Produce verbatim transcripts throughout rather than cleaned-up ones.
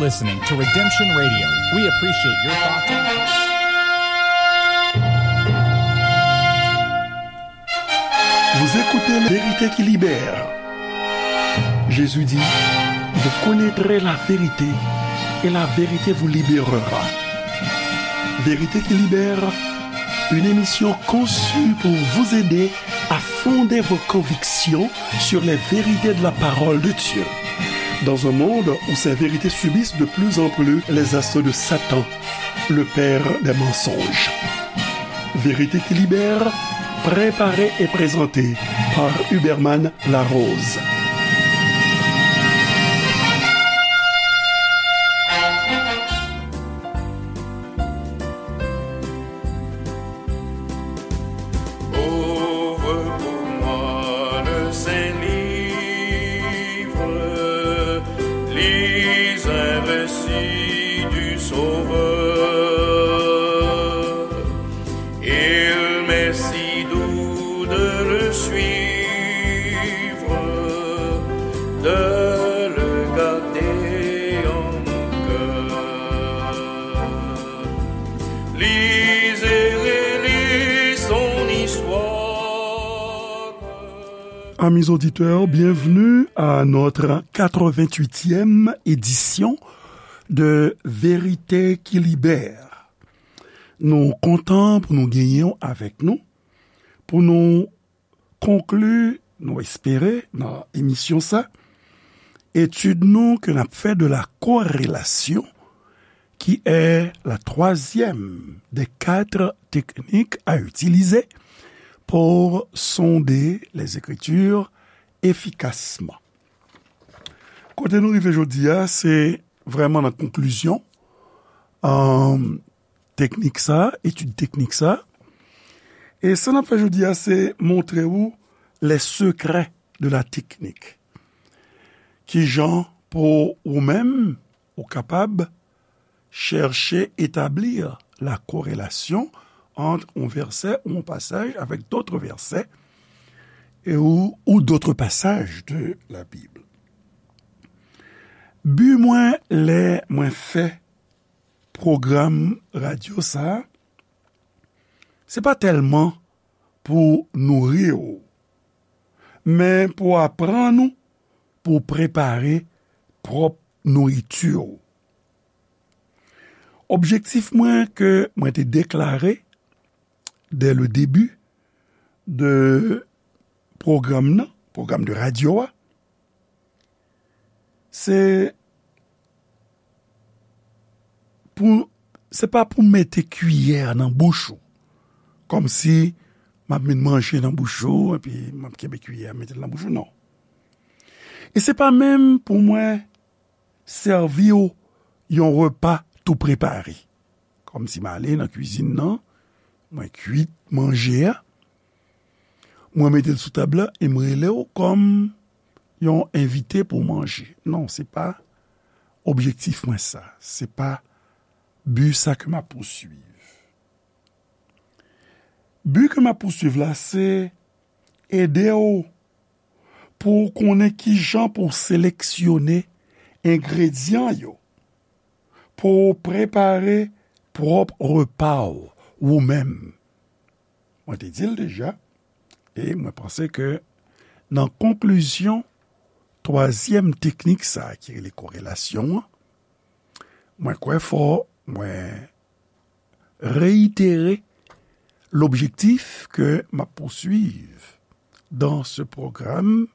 Listening to Redemption Radio. We appreciate your thoughts and comments. Vous écoutez La Vérité qui libère. Jésus dit, vous connaîtrez la vérité et la vérité vous libérera. Vérité qui libère, une émission conçue pour vous aider à fonder vos convictions sur les vérités de la parole de Dieu. Dans un monde où ces vérités subissent de plus en plus les assauts de Satan, le père des mensonges. Vérité qui libère, préparée et présentée par Huberman Larose. Ouvre pour moi le Saint-Livre, lis un récit du Sauveur. Il m'est si doux de le suivre, de le garder en mon cœur. Lis et relis son histoire. Amis auditeurs, bienvenue à notre quatre-vingt-huitième édition de Vérité qui Libère. Nou kontan pou nou genyen w avèk nou, pou nou konkli, nou espere, nan emisyon sa, etid nou ke n ap fè de la corrélation, qui est la troisième des quatre techniques à utiliser pour sonder les Écritures efficacement. Kote nou rive jodi a, se vrèman nan konklizyon, euh, teknik sa, etid teknik sa. E sa n ap fè jodi a, se montre ou les secrets de la technique. Kijan pou ou menm, ou kapab chèche etablir la corrélation entre un verset ou un passage avec d'autres versets et ou, ou d'autres passages de la Bible. Bi mwen lè mwen fè pwogram radyo sa a, se pa tèlman pou nouri w, men pou aprann ou pou prepare pwòp nouriti w. Objektif mwen ke mwen te deklare dès le début de pwogram nan, pwogram de radyo a, se pou, se pa pou mete kiyè nan bouch ou, kòmsi m ap met manje nan bouch ou, epi m ap kenbe kiyè a mete l nan bouch ou, non. E se pa menm pou mwen sèvi w yon repa tou prepare. Kòmsi m ale nan kwizin nan, mwen kwit manje a, mwen mete l sou tab la e m rele w kòm yon envite pou w manje. Non, se pa objektif mwen sa. Se pa bi sa ke m ap pouswiv. Bi ke m ap pouswiv la, se ede w pou w konnen kijan pou w seleksyone engredyan yo, pou w prepare pwòp repa w, ou menm. Mwen te di l deja, e mwen panse ke nan konklizyon twazyèm teknik sa a ki rele korelasyon an, mwen kwè fò mwen réitérer l'objectif que m'a poursuivre dans ce programme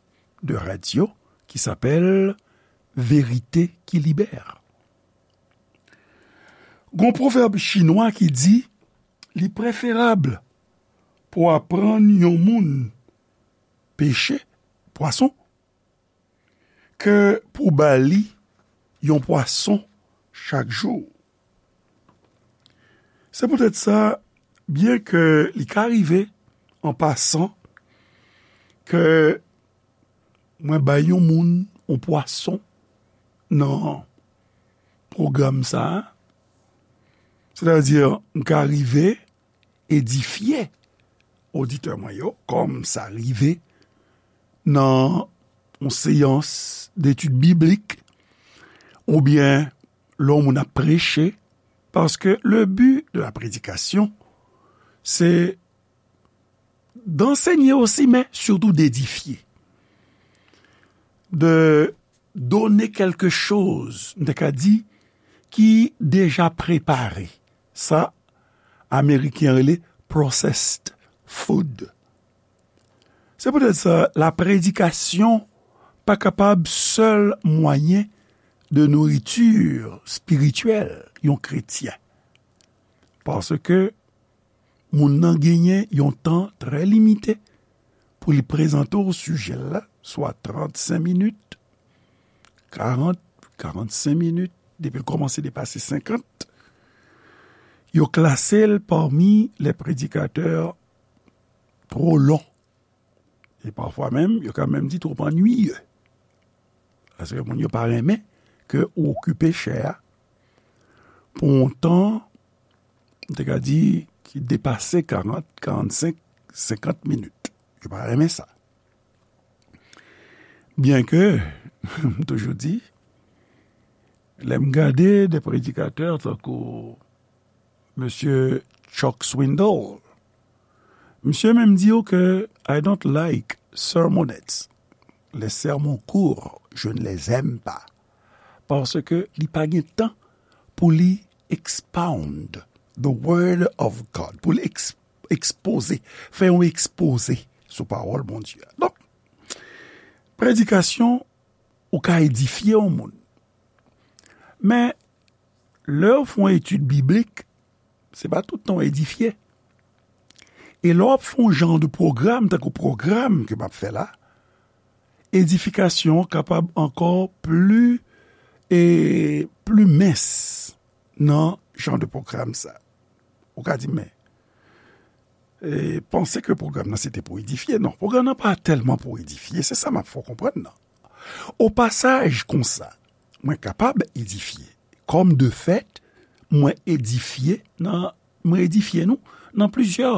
de radio qui s'appelle Vérité qui libère. Gon pwovèb chinwa ki di, li preferab pou aprann yon moun peche pwason ke pou ba li yon pwason chak jou. Se poutèt sa, byen ke li ka rive an pasan ke mwen bay yon moun yon pwason nan pwogram sa a, sètadi m ka rive edifye oditè mwen yo, kòm sa rive nan yon seyans detid biblik, oubyen lè yon moun ap preche, paske le but de la prédication, c'est d'enseigner aussi, mais surtout d'édifier. De donner quelque chose, m te ka di, ki deja prepare. Sa, Ameriken rele processed food. Se poutèt sa, la prédication pa kapab sèl mwayen de nourriture spirituelle yon kretyen. Paske moun nan genyen yon tan trè limite pou li prezante w sijè l la, swa trannsenk minit, karant, karannsenk minit, depi l kòmanse depase senkant, yo klase l pami les prédicateurs trop longs. E pafwa menm, yo ka menm di twòp annuiye. Paske moun yo pa renmen ke ou okipe chè a pou yon tan, m te ka di, ki depase karant, karannsenk, senkant minit. Yo pa renmen sa. Byenke, m toujou di, lè m gade de predikatè tankou Mesye Chuck Swindoll, misye menm di w ke I don't like sermonettes. Les sermons courts, je ne les aime pas. Paske li pa gen tan pou li expound the word of God, pou li eks-, ekspoze, fè yon ekspoze sou pawòl Bondye a. Donk, predikasyon, ou ka edifye yon moun. Men, lè w fè yon etid biblik, se pa tout tan w edifye. E lè w ap fè yon jan de pwogram, tankou pwogram ke m ap fè la, edifikasyon an kapab ankò pli, e pli mens nan jan de pwogram sa. Ou ka di, men, e, panse ke pwogram nan se te pou edifye. Non, pwogram nan pa tèlman pou edifye, se sa m ap fè w konprann nan. O pasaj konsa, mwen kapab edifye. Kòm de fèt, mwen edifye nan, mwen edifye nou nan plizyè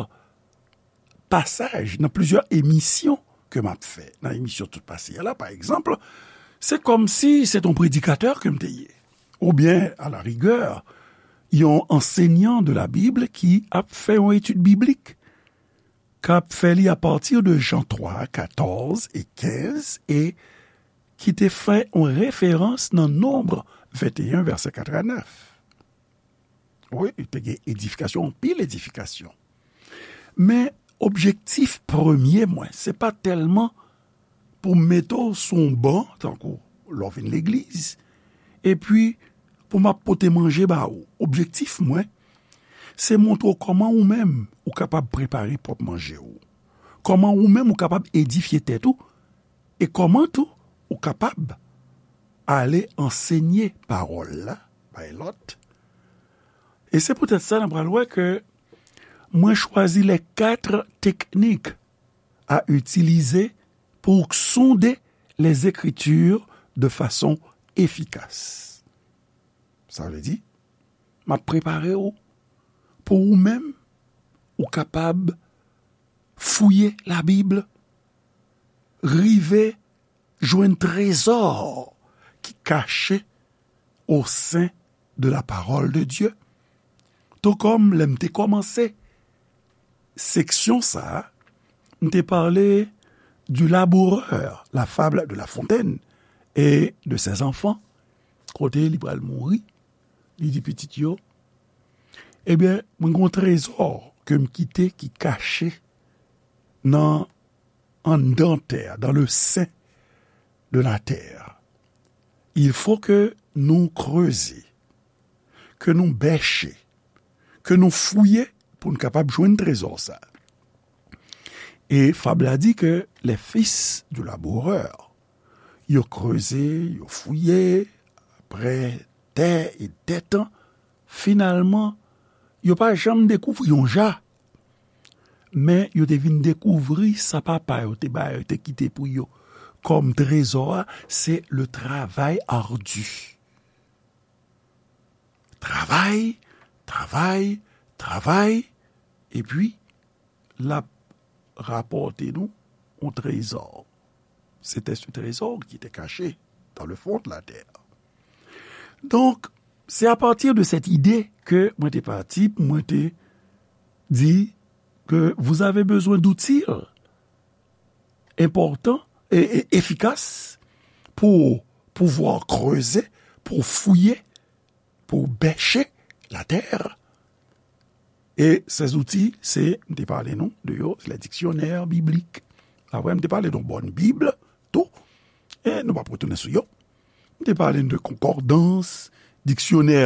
pasaj, nan plizyè emisyon ke m ap fè. Nan emisyon tout pase a la, pa egzanp, se kòmsi se t on predikatè ke m te ye. Oubyen, a la rigè, yon ansenyan de la Bib ki ap fè yon etid biblik, k ap fè li apati de Jan twa, katòz e kenz, e ki te fè yon referans nan Nonb venteyen, vèsè kat a nèf. Wi, te gen edifikasyon, anpil edifikasyon. Men, objektif premye mwen, se pa tèlman pou m mete w sou yon ban, tankou lè w vin legliz, epi pou m ap pote manje ba ou. Objektif mwen, se montre w kòman ou menm ou kapab prepare pwòp manje w. Kòman ou menm ou kapab edifye tèt ou, e kòman tou ou kapab ale ansenye pawòl la bay lòt. E se poutèt sa, n a pral wè ke mwen chwazi les quatre techniques à utiliser pour sonder les Écritures de façon efficace. Sa vle di, m ap prepare w pou ou menm, ou kapab fouye Labib, rive jwenn trezò ki kache au sein de la parole de Dieu. Tou kòm lè m te kòmanse seksyon sa a, m te pale du laboureur, la fable de La Fontaine et de ses enfants, kote li pral mouri, li di pitit yo, ebyen, mwen gen yon trezò ke m kite ki kache nan anndan tè a, dans le sein de la terre. Il faut que nou kreze, ke nou bèche, ke nou fouye pou n kapab jwenn trezò sa. E fab la di ke les fils du laboureur, yo kreze, yo fouye, apre dè e dè tan, finalman, yo pa janm dekouvri yon ja. Men yo te vin dekouvri sa papa yo te ba yo, te kite pou yo kòm trezò a, se le travail ardu. Travay, travay, travay, epi l ap rapòte nou yon trezò. C'était ce trésor qui était caché dans le fond de la terre. Donk, C'est à partir de cette idée que mwen te pati, mwen te di que vous avez besoin d'outils importants et, et efficaces pour pouvoir creuser, pour fouiller, pour bêcher la terre. E se zouti, se, m te pale nou de yo, se le diksyonè biblik. Apre, m te pale de yon bòn Bib tou, e nou p ap retounen sou yo. M te pale de konkòdans, diksyonè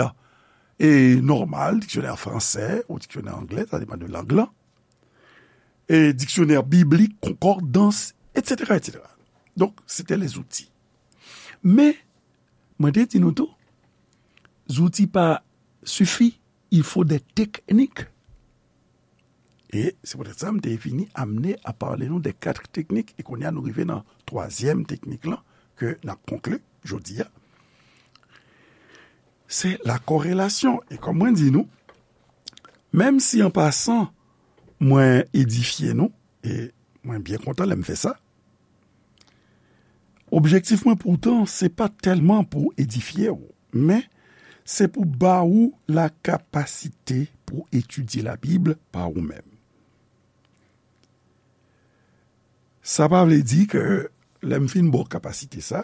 e nòmal, diksyonè fransè ou diksyonè anglè, sa depann de lang lan. E diksyonè biblik, konkòdans, etsetera, etsetera. Donk, se te lè zouti. Men, mwen te di nou tou, zouti pa sifi, il faut des techniques. E se poutèt sa, m te vini amne a pale nou de kat teknik, e kounye a nou rive nan twazyèm teknik lan, ke n ap konkli jodi a. Se la korelasyon. E kòm mwen di nou, menm si an pasan, mwen edifye nou, e mwen byen kontan lè m fè sa, objektif mwen poutan, se pa tèlman pou edifye w, men se pou ba ou la kapasite pou etidye Labib pa ou menm. Sa pa vle di ke lè m fin ba w kapasite sa,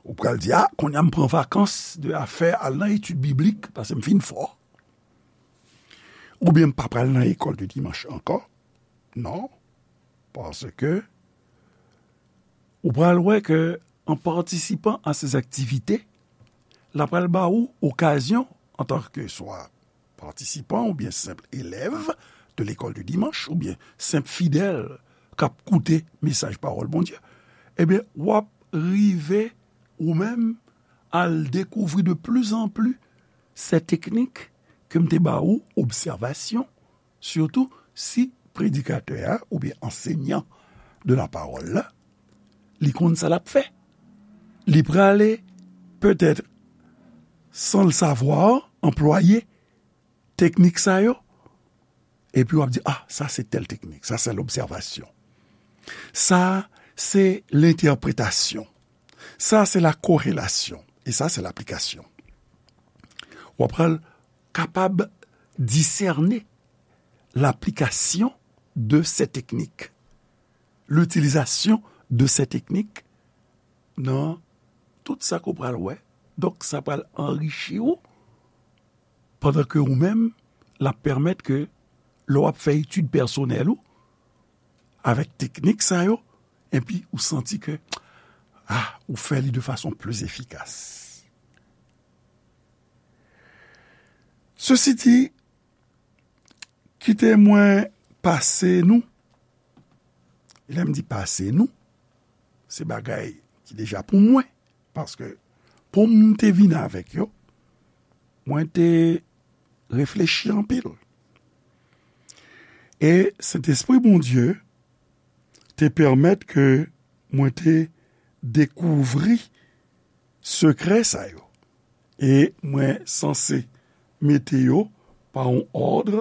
ou pral di, a, kounye a m pran vakans de afè al nan etid biblik, paske m fin fò. Oubyen m pa pral nan lekòl de dimanch ankò. Non, paske ou pral wè ke an patisipan a ces activités, la pral ba ou okazyon, antanke swa patisipan oubyen senp elèv de lekòl de dimanch oubyen senp fidèl k ap koute mesaj pawòl Bondye, ebyen, w ap rive ou menm al dekouvri de plus en plus ces techniques ke m te ba ou, obsèvasyon, sitou si predikatè a oubyen ansenyan de la pawòl la, li konn sa l ap fè. Li prale, petèt, san l savwa, anplwaye teknik sa yo, epi w ap di, a, sa se tèl teknik, sa se lobsèvasyon. Sa se lentèpretasyon. Sa se la korelasyon. E sa se laplikasyon. W ap pral kapab disène laplikasyon de ces techniques, l'utilisation de ces techniques nan tout sa ke w pral wè. Donk, sa pral anrichi w, pandan ke ou menm, l ap pèmèt ke lè w ap fè etid pèsonèl ou, avèk teknik sa yo, epi ou santi ke, a, ou fè li de fason pli efikas. Sesi di, kite mwen pase nou. Lè m di pase nou, se bagay ki deja pou mwen. Paske pou m te vin avèk yo, mwen te reflechi anpil. E Sentespri Bondye te pèmèt ke mwen te dekouvri sekrè sa yo. E mwen sanse mete yo pa yon òd.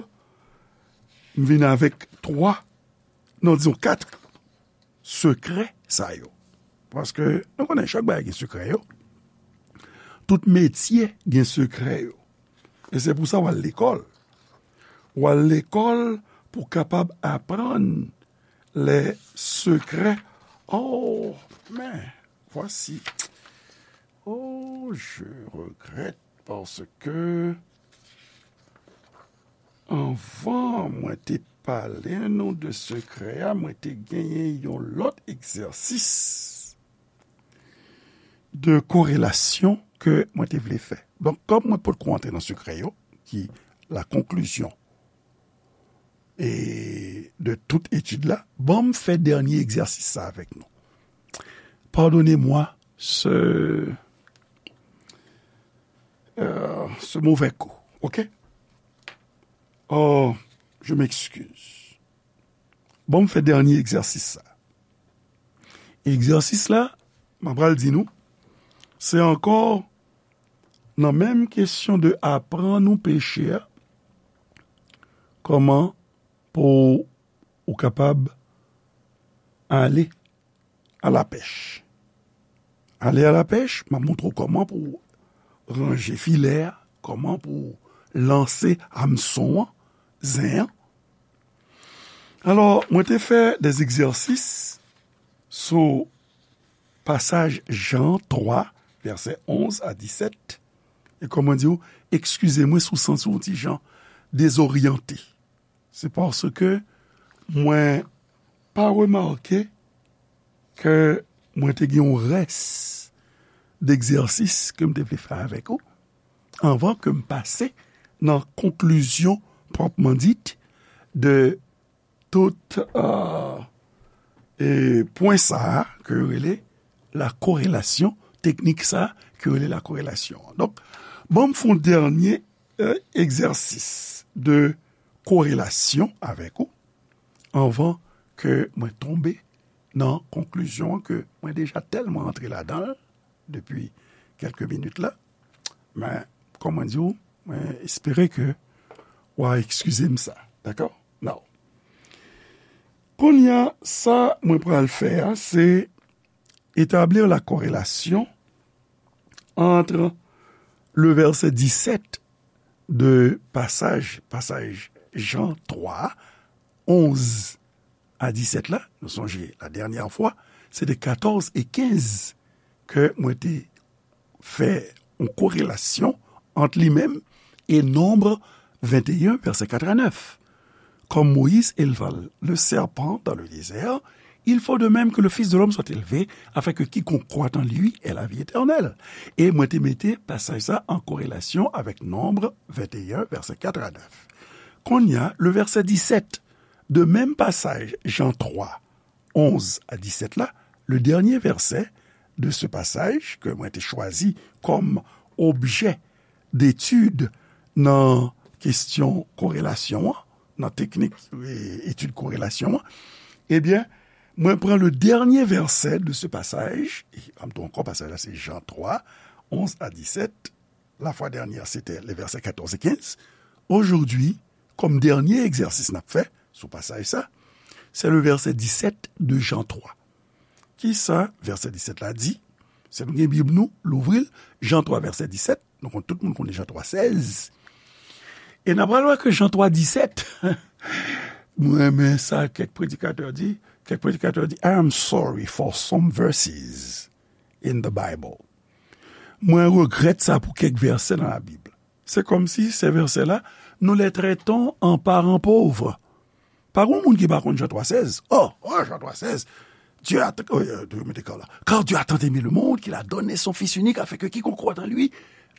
M vin avèk twa, non, dizon kat sekrè sa yo. Paske nou konnen chak bagay gen sekrè yo. Tout metye gen sekrè yo. E se pou sa w al lekòl. W al lekòl pou w kapab aprann les secrets. Oh, men, voici. Oh, je regrette parce que anvan mwen te pale nou de sekrè a, mwen te genyen yon lòt egzèsis de korelasyon ke mwen te vle fè. Donk, kòm mwen potko antre nan sekrè yo, ki la konklizyon e de tout etid la, ban m fè dènye egzèsis sa avèk nou. Pardonnez-moi ce, euh, ce mauvais coup, ok? Oh, je m'excuse. Ban m fè dènye egzèsis sa. Egzèsis la, m ap pral di nou, se ankò nan menm kesyon de aprann ou peche a, kòman pou ou kapab ale a la pèch. Ale a la pèch, m ap montre w kòman pou w ranje filè a, kòman pou lanse amson an, zen an. Alò, mwen te fè de egzèsis sou pasaj Jan twa, vèsè onz a disèt. E kòman di w, ekskize mwen si w santi w ti jan dezoryante. Se paske mwen pa remake ke mwen te gen yon rès degzèsis ke m te vle fè avèk ou anvan ke m pase nan konklizyon pwòpman dit de tout, euh, e pwen sa a ke yo rele la korelasyon, teknik sa a ke yo rele la korelasyon. Donk, ban m fè yon dènye, euh, egzèsis de korelasyon avèk ou anvan ke mwen tonbe nan konklizyon ke mwen deja tèlman antre ladan l depi kèlke minit la. Men, kòman di w, mwen espere ke w a ekskize m sa. Dakò? Now. Kounye a, sa mwen pral fè a, se établir la corrélation entre le verset dix-sept de pasaj, pasaj Jan twa, onz a disèt la, nou sonje la dènyè fwa, se te katòz e kenz ke mwen te fè yon korelasyon ant li menm e Nonb venteyen, vèsè kat a nèf. Comme Moïse éleva le serpent dans le désert, il faut de même que le Fils de l'homme soit élevé, afin que quiconque croit en lui ait la vie éternelle. E mwen te mete pasaj sa an korelasyon avèk Nonb venteyen, vèsè kat a nèf. Kounye a, le verset dix-sept de menm pasaj Jan twa, onz a disèt la, le dernier verset de ce passage ke mwen te chwazi kòm objè detid nan kesyon korelasyon an, nan teknik, e, etid korelasyon an, ebyen, mwen pran le dernier verset de ce passage, e, m ap di ankò, pasaj la se Jan twa, onz a disèt, la fois dernière, c'était les versets quatorze et quinze. Aujourd'hui, comme dernier egzèsis n ap fè sou pasaj sa, c'est le verset dix-sept de Jean trois. Kisa vèsè disèt la di? Si nou gen Bib nou, louvri l, Jan twa, vèsè disèt. Nou konn, tout moun konnen Jan twa sèz. E n ap pral wè ke Jan twa disèt, mwen renmen sa kèk predikatè di. Kèk predikatè di, "I am sorry for some verses in the Bible." Mwen regrèt sa pou kèk vèsè nan Labib. Se kòmsi se vèsè la, nous les traitons en parents pauvres. Pa gen moun ki pa konn Jan twa sèz. Oh, oh, Jan twa sèz. Dieu a, oh, euh, mete kò la. Car Dieu a tant aimé le monde qu'il a donné son Fils unique afin que quiconque croit en lui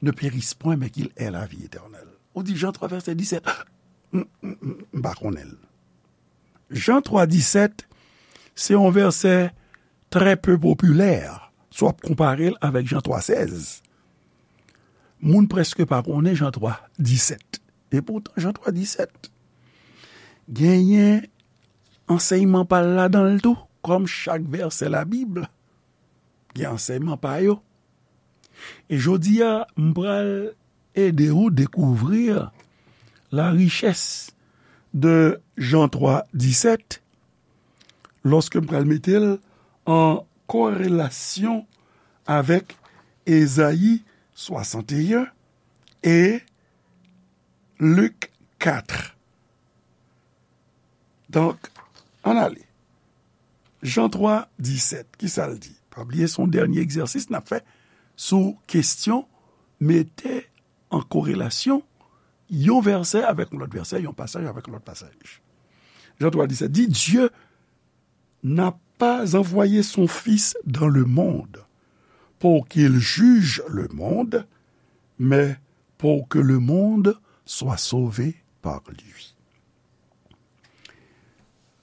ne périsse point mais qu'il ait la vie éternelle. Ou di Jan twa vèsè disèt. M, m, m, m pa konnen l. Jan twa disèt, se yon vèsè trè pe popilè, si w ap konpare l avèk Jan twa sèz. Moun prèske pa konnen Jan twa disèt. E poutan, Jan twa disèt genyen ansèyman pa l ladan l tou, kòm chak vèsè Labib gen ansèyman pa yo. E jodi a, m pral ede ou dekouvri la richès de Jan twa disèt, lòske m pral mete l an korelasyon avèk Ezayi swasanteyen e Lik kat. Donk, ann ale. Jan twa disèt, kisa l di? Pa bliye, se yon dènye egzèsis n ap fè sou kesyon mete an korelasyon yon vèsè avèk yon lòt vèsè, yon pasaj avèk yon lòt pasaj. Jan twa disèt di, Dieu n'a pas envoyé son Fils dans le monde pour qu'il juge le monde, mais pour que le monde soit sauvé par lui.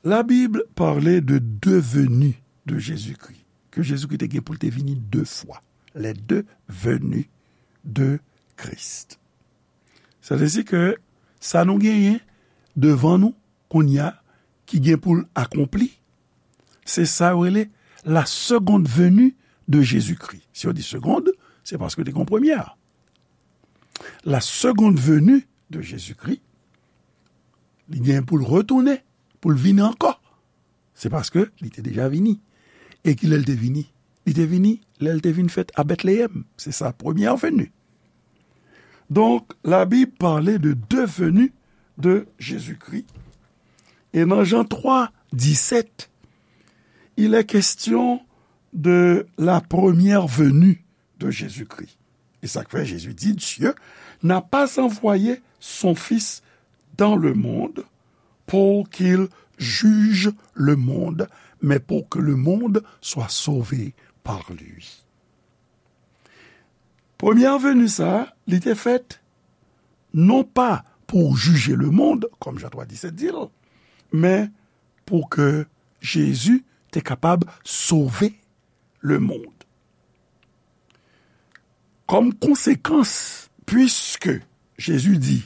La Bible parlait de deux venues de Jésus-Christ, ke Jezikri te gen pou l te vini de fwa, les deux venues de Christ. Sa vle di ke sa nou genyen devan nou kounye a ki gen pou l akonpli, se sa yo rele la seconde venue de Jésus-Christ. Si yo di seconde, se paske te gen premyè. La seconde venue de Jésus-Christ, li gen pou l retounen, pou l vini ankò. Se paske li te deja vini. E kilè l te vini? Li te vini lè l te vin fèt a Bètleyèm. Se sa, premyè veni. Donc, la Bible parlait de deux venues de Jésus-Christ. Et dans Jean trois, dix-sept, il est question de la première venue de Jésus-Christ. E sa k fè Jezi di, Dieu n'a pas envoyé son Fils dans le monde pour qu'il juge le monde, mais pour que le monde soit sauvé par lui. Premye veni sa, li te fèt non pa pou jije lemonn, kòm Jan twa disèt di l, men pou ke Jezi te kapab sove lemonn. Kòm konsekans, puiske Jezi di,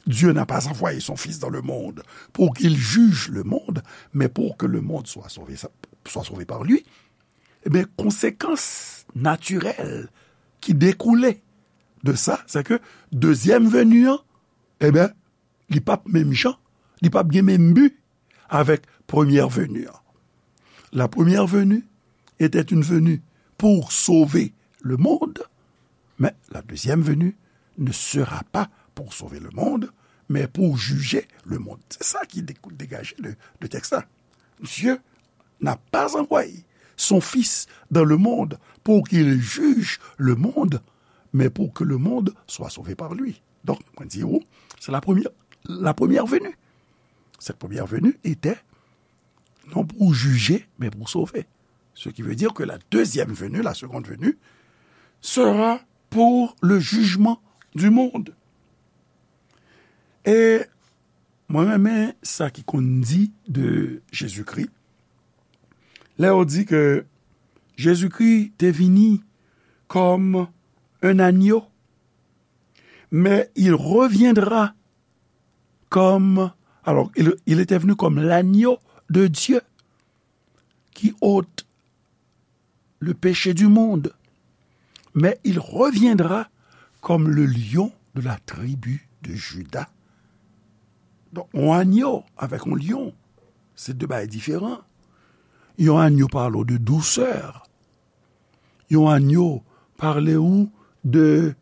Dieu n'a pas envoyé son Fils dans le monde pour qu'il juge le monde, mais pour que le monde soit sauvé, soit sauvé par lui, ebyen, konsekans natirèl ki dekoule de sa, se ke dezyèm veni an, ebyen, li p ap menm jan, li p ap gen menm bi avèk premye veni an. La première venue était une venue pour sauver le monde, mais la deuxième venue ne sera pas pour sauver le monde, mais pour juger le monde. Se sa ki degaje de, de tèks la. Dieu n'a pas envoyé son Fils dans le monde pour qu'il juge le monde, mais pour que le monde soit sauvé par lui. Donk, mwen di ou, se la premye, la premye veni. Cette première venue était non pour juger, mais pour sauver. Ce qui veut dire que la deuxième venue, la seconde venue, sera pour le jugement du monde. E mwen renmen sa ki konn di de Jezikri. Lè yo di ke Jezikri te vini comme un agneau, mais il reviendra comme, alors, il, il était venu comme l'agneau de Dieu qui ôte le péché du monde, mais il reviendra comme le lion de la tribu de Juda. Donk, yon agneau avèk yon lyon, se de bagay diferan. Yon agneau pale w de dousè. Yon agneau pale w de,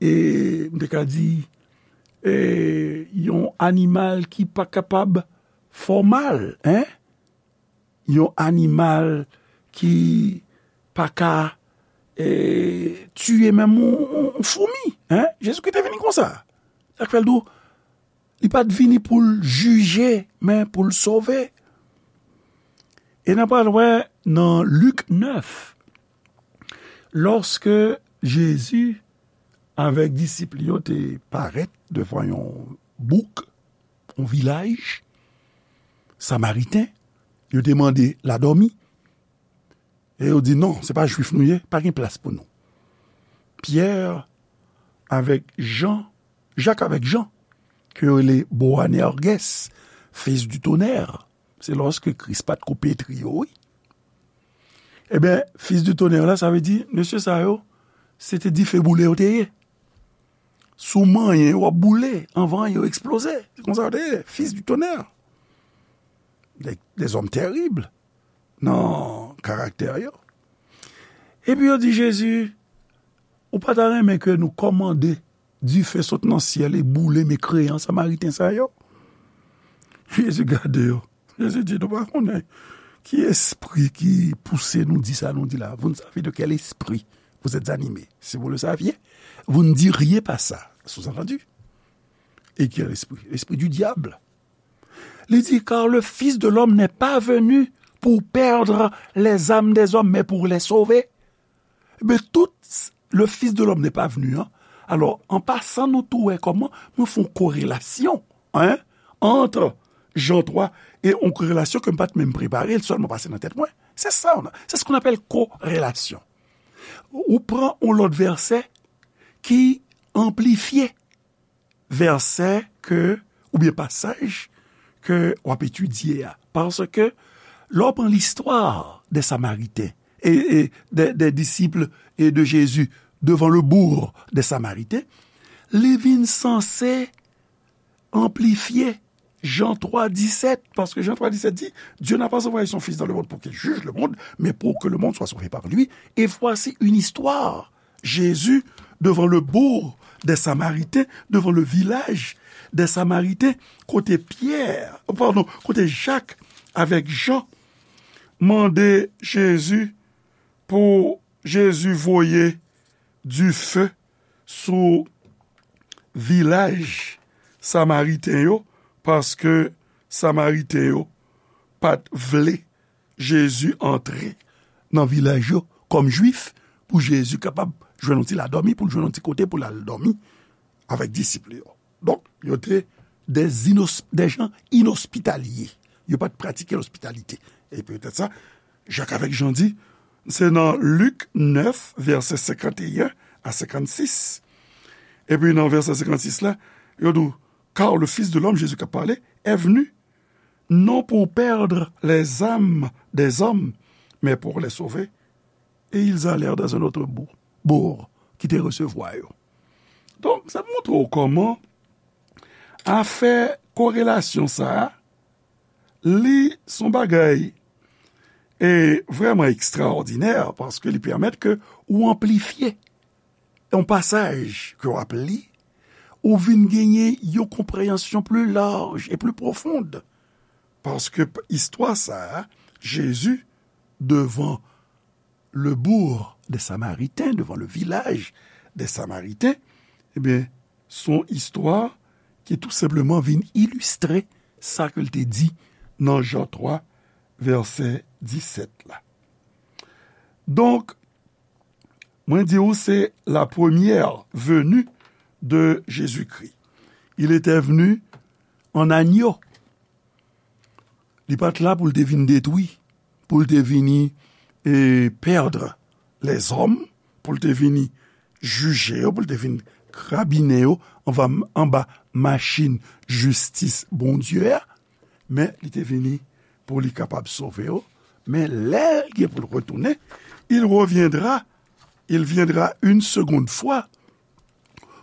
e, m te ka di, e, yon animal ki pa kapab fè w mal, en? Yon animal ki pa ka, e, tiye menm yon, yon, yon foumi, en? Jezikri te vini konsa. Sa k fè l di w, li pa t vini pou l jije, men pou l sove. E n a pral wè nan Lik nèf, lòske Jezi avèk disip li yo te parèt devan yon bouk, yon vilaj samariten, yo te mande l a dòmi. E yo di, "Non, se pa Jwif nou ye, pa gen plas pou nou." Pyè avèk Jan, Jak avèk Jan, ke yo rele Boanerges, fils du tonnerre, se lòske Kris pa t ko petri yo, wi. Ebyen, fils du tonnerre la, sa vle di, mesye sa yo, se te dife boule yo te ye. Si w manyen yo, w ap boule, anvan yo eksploze. Se konsa yo te ye, fils du tonnerre. Des, des hommes terribles nan karaktè yo. Epi yo di Jezi, "Ou pa ta renmen ke nou kòmande dife sot nan syèl e boule mekreyan Samariten sa yo?" Jezi gade yo. Jezi di, "Nou pa konnen ki espri ki pouse nou di sa nou di la. Vous ne savez de quel esprit vous êtes animés. Si vous le saviez, vous ne diriez pas ça." Sous-entendu. Et quel esprit? L'esprit du diable. Li di, "Car le Fils de l'homme n'est pas venu pour perdre les âmes des hommes, mais pour les sauver." Men tout le Fils de l'homme n'est pas venu, hein. Alò, an pasan, nou tou wè kòman mwen fè yon korelasyon, hein, entre Jean trois e yon korelasyon ke m pa t menm prepare, l sèlman pase nan tèt mwen. Se sa, c'est ce qu'on appelle corrélation. Ou pran yon lòt vèsè ki anplifye vèsè ke, oubyen pasaj ke w ap etidye a. Paske, lè w pran listwa de Samariten e, e de, de disip e de Jezi devan le bourg de Samariten, li vin sanse anplifye Jan twa disèt, paske Jan twa disèt di, Dieu n'a pas envoyé son Fils dans le monde pour qu'il juge le monde, mais pour que le monde soit sauvé par lui. Et voici une histoire. Jésus devant le bourg des Samaritains, devant le village des Samaritains, kote Pyè, padon, kote Jak avèk Jan mande Jezi pou Jezi voye dife sou vilaj Samariten yo, paske Samariten yo pa t vle Jezi antre nan vilaj yo kòm Jwif, pou Jezi kapab jwenn yon ti ladòmi, pou l jwenn yon ti kote pou l al dòmi avèk disip li yo. Donk, yo te des inos-, des gens inhospitaliers. Yo pa t pratike lospitalite. E petèt sa, Jak avèk Jan di, se nan Lik nèf, vèsè senkanteyen a senkannsis. Epi nan vèsè senkannsis la, yo di, car le Fils de l'homme, Jésus k ap pale, est venu, non pour perdre les âmes des hommes, mais pour les sauver. Et ils allèrent dans un autre bourg, bourg ki te resevwa yo. Donk, sa montre w kòman afè korelasyon sa a, li s on bagay e vrèman ekstraòdinè, paske li pèmèt ke ou anplifye yon pasaj ke w ap li, ou vin genyen yon konpreyansyon pli laj e pli pwofon. Paske p-, istwa sa a, Jezi devan le bourg des Samaritains, devant le village des Samaritains, ebyen, s on istwa ki tou senpleman vin ilistre sa ke l te di nan Jan twa, vèsè disèt la. Donk, mwen di w, se la première venue de Jésus-Christ. Il était venu en agneau. Li pa t la pou l te vin detwi, pou l te vini, e, perdre les hommes, pou l te vini jije yo, pou l te vin krabinen yo anba, anba machin jistis Bondye a, men li te vini pou li kapab sove yo. Men lè l gen pou l retounen, il reviendra, il viendra une seconde fois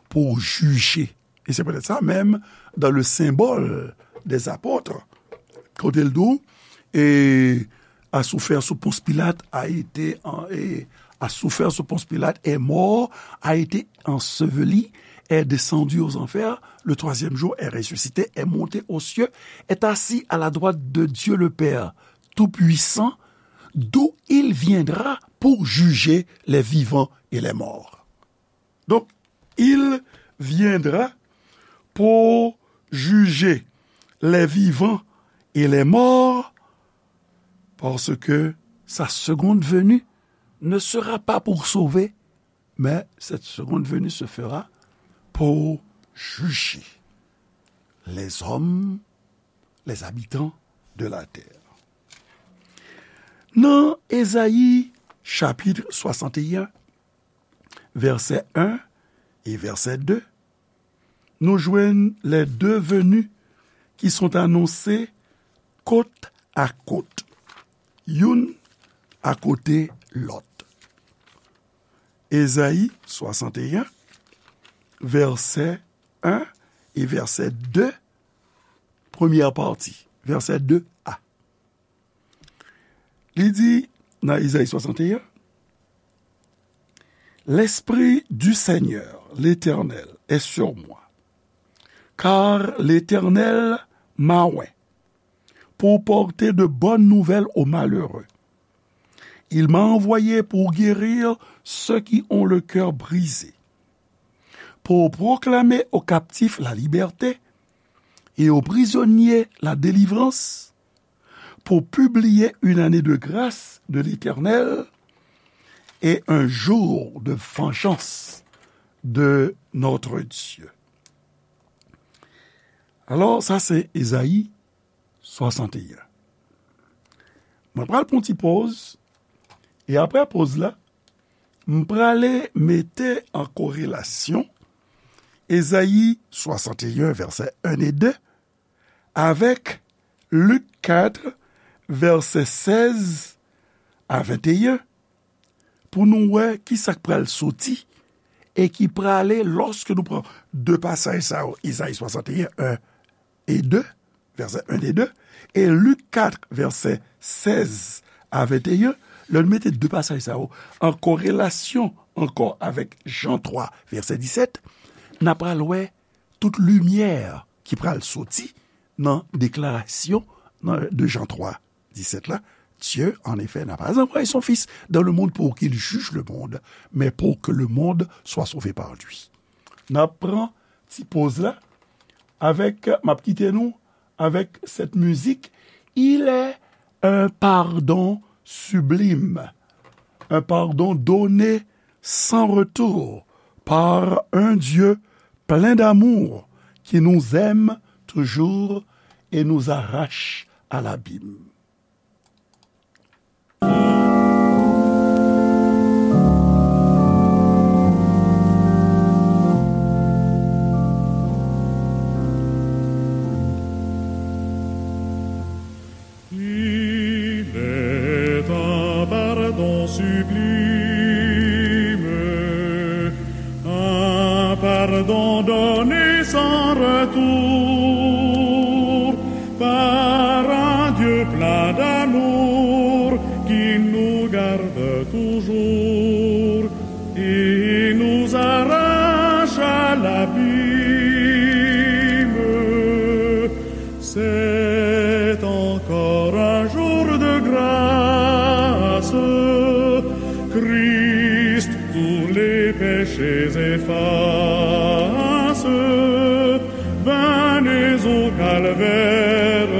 pour juger. Et c'est peut-être ça même dans le symbole des apôtres. Kote l di w, et a souffert sous Ponce Pilate, a été en-, et a souffert sous Ponce Pilate, est mort, a été enseveli, est descendu aux enfers, le troisième jour est ressuscité, est monté aux cieux, est assis à la droite de Dieu le Père Tout-Puissant, d'où il viendra pour juger les vivants et les morts. Donc, il viendra pour juger les vivants et les morts, parce que sa seconde venue ne sera pas pour sauver, mais cette seconde venue se fera pour juger les hommes, les habitants de la terre. Nan Ezayi chapit swasanteyen, vèsè en e vèsè de, nou jwenn les deux venues qui sont annoncées côte à côte, youn akote lòt. Ezayi swasanteyen, vèsè en e vèsè de, premyè pati, vèsè de a. Li di nan Ezayi swasanteyen, L'Esprit du Seigneur, l'Éternel, est sur moi, car l'Éternel m'a oint pour porter de bonnes nouvelles aux malheureux. Il m'a envoyé pour guérir ceux qui ont le cœur brisé, pour proclamer aux captifs la liberté et aux prisonniers la délivrance, pour publier une année de grâce de l'Éternel et un jour de vengeance de notre Dieu. Alò, sa se Ezayi swasanteyen. Mwen pral pran ti pòz, e apre pòz la, m prale mete an korelasyon Ezayi swasanteyen, vèsè en e de, avèk Lik kat, vèsè sèz a venteyen, pou nou wè ki sa k pral soti e ki prale lòske nou pran de pasaj sa yo, Ezayi swasanteyen, en e de, vèsè en e de, e Lik kat, vèsè sèz a venteyen, Lè nou mete de pasaj sa yo an korelasyon ankò avèk Jan twa, vèsè disèt, n a pral wè tout limyè ki pral soti nan deklarasyon nan, de Jan twa, disèt la. Dieu, en effet, n'a pas envoyé son Fils dans le monde pour qu'il juge le monde, mais pour que le monde soit sauvé par lui. N ap pran ti poz la avèk, m ap kite nou avèk sèt mizik, Il est un pardon sublime, un pardon donné sans retour par un Dieu plein d'amour qui nous aime toujours et nous arrache à l'abîme. Il est un pardon sublime, un pardon donné sans retour par un Dieu plein d'amour qui nous garde toujours et nous arrache à l'abîme. C'est encore un jour de grâce. Christ tous les péchés efface. Venez au calvaire,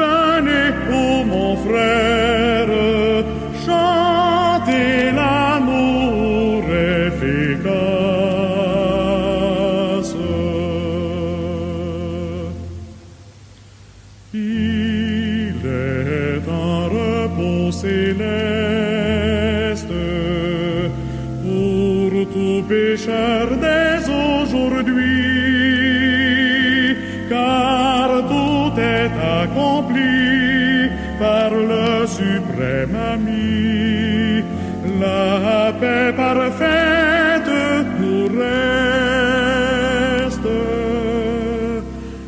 venez, ô mon frère, chantez l'amour efficace. Il est un repos céleste pour tout pécheur dès aujourd'hui, car tout est accompli par le suprême ami. La paix parfaite nous reste.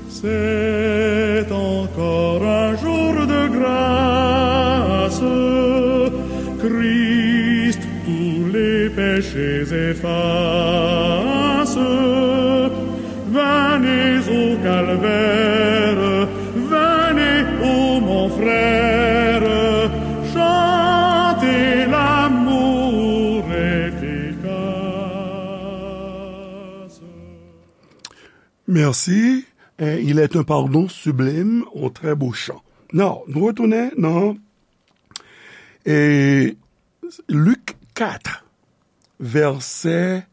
C'est encore un jour de grâce. Christ tous les péchés efface. Venez au calvaire, venez, ô mon frère, chantez l'amour efficace. Merci. Eh, il est un pardon sublime, un très beau chant. Now, nou retounen nan, eh, Lik kat, vèsè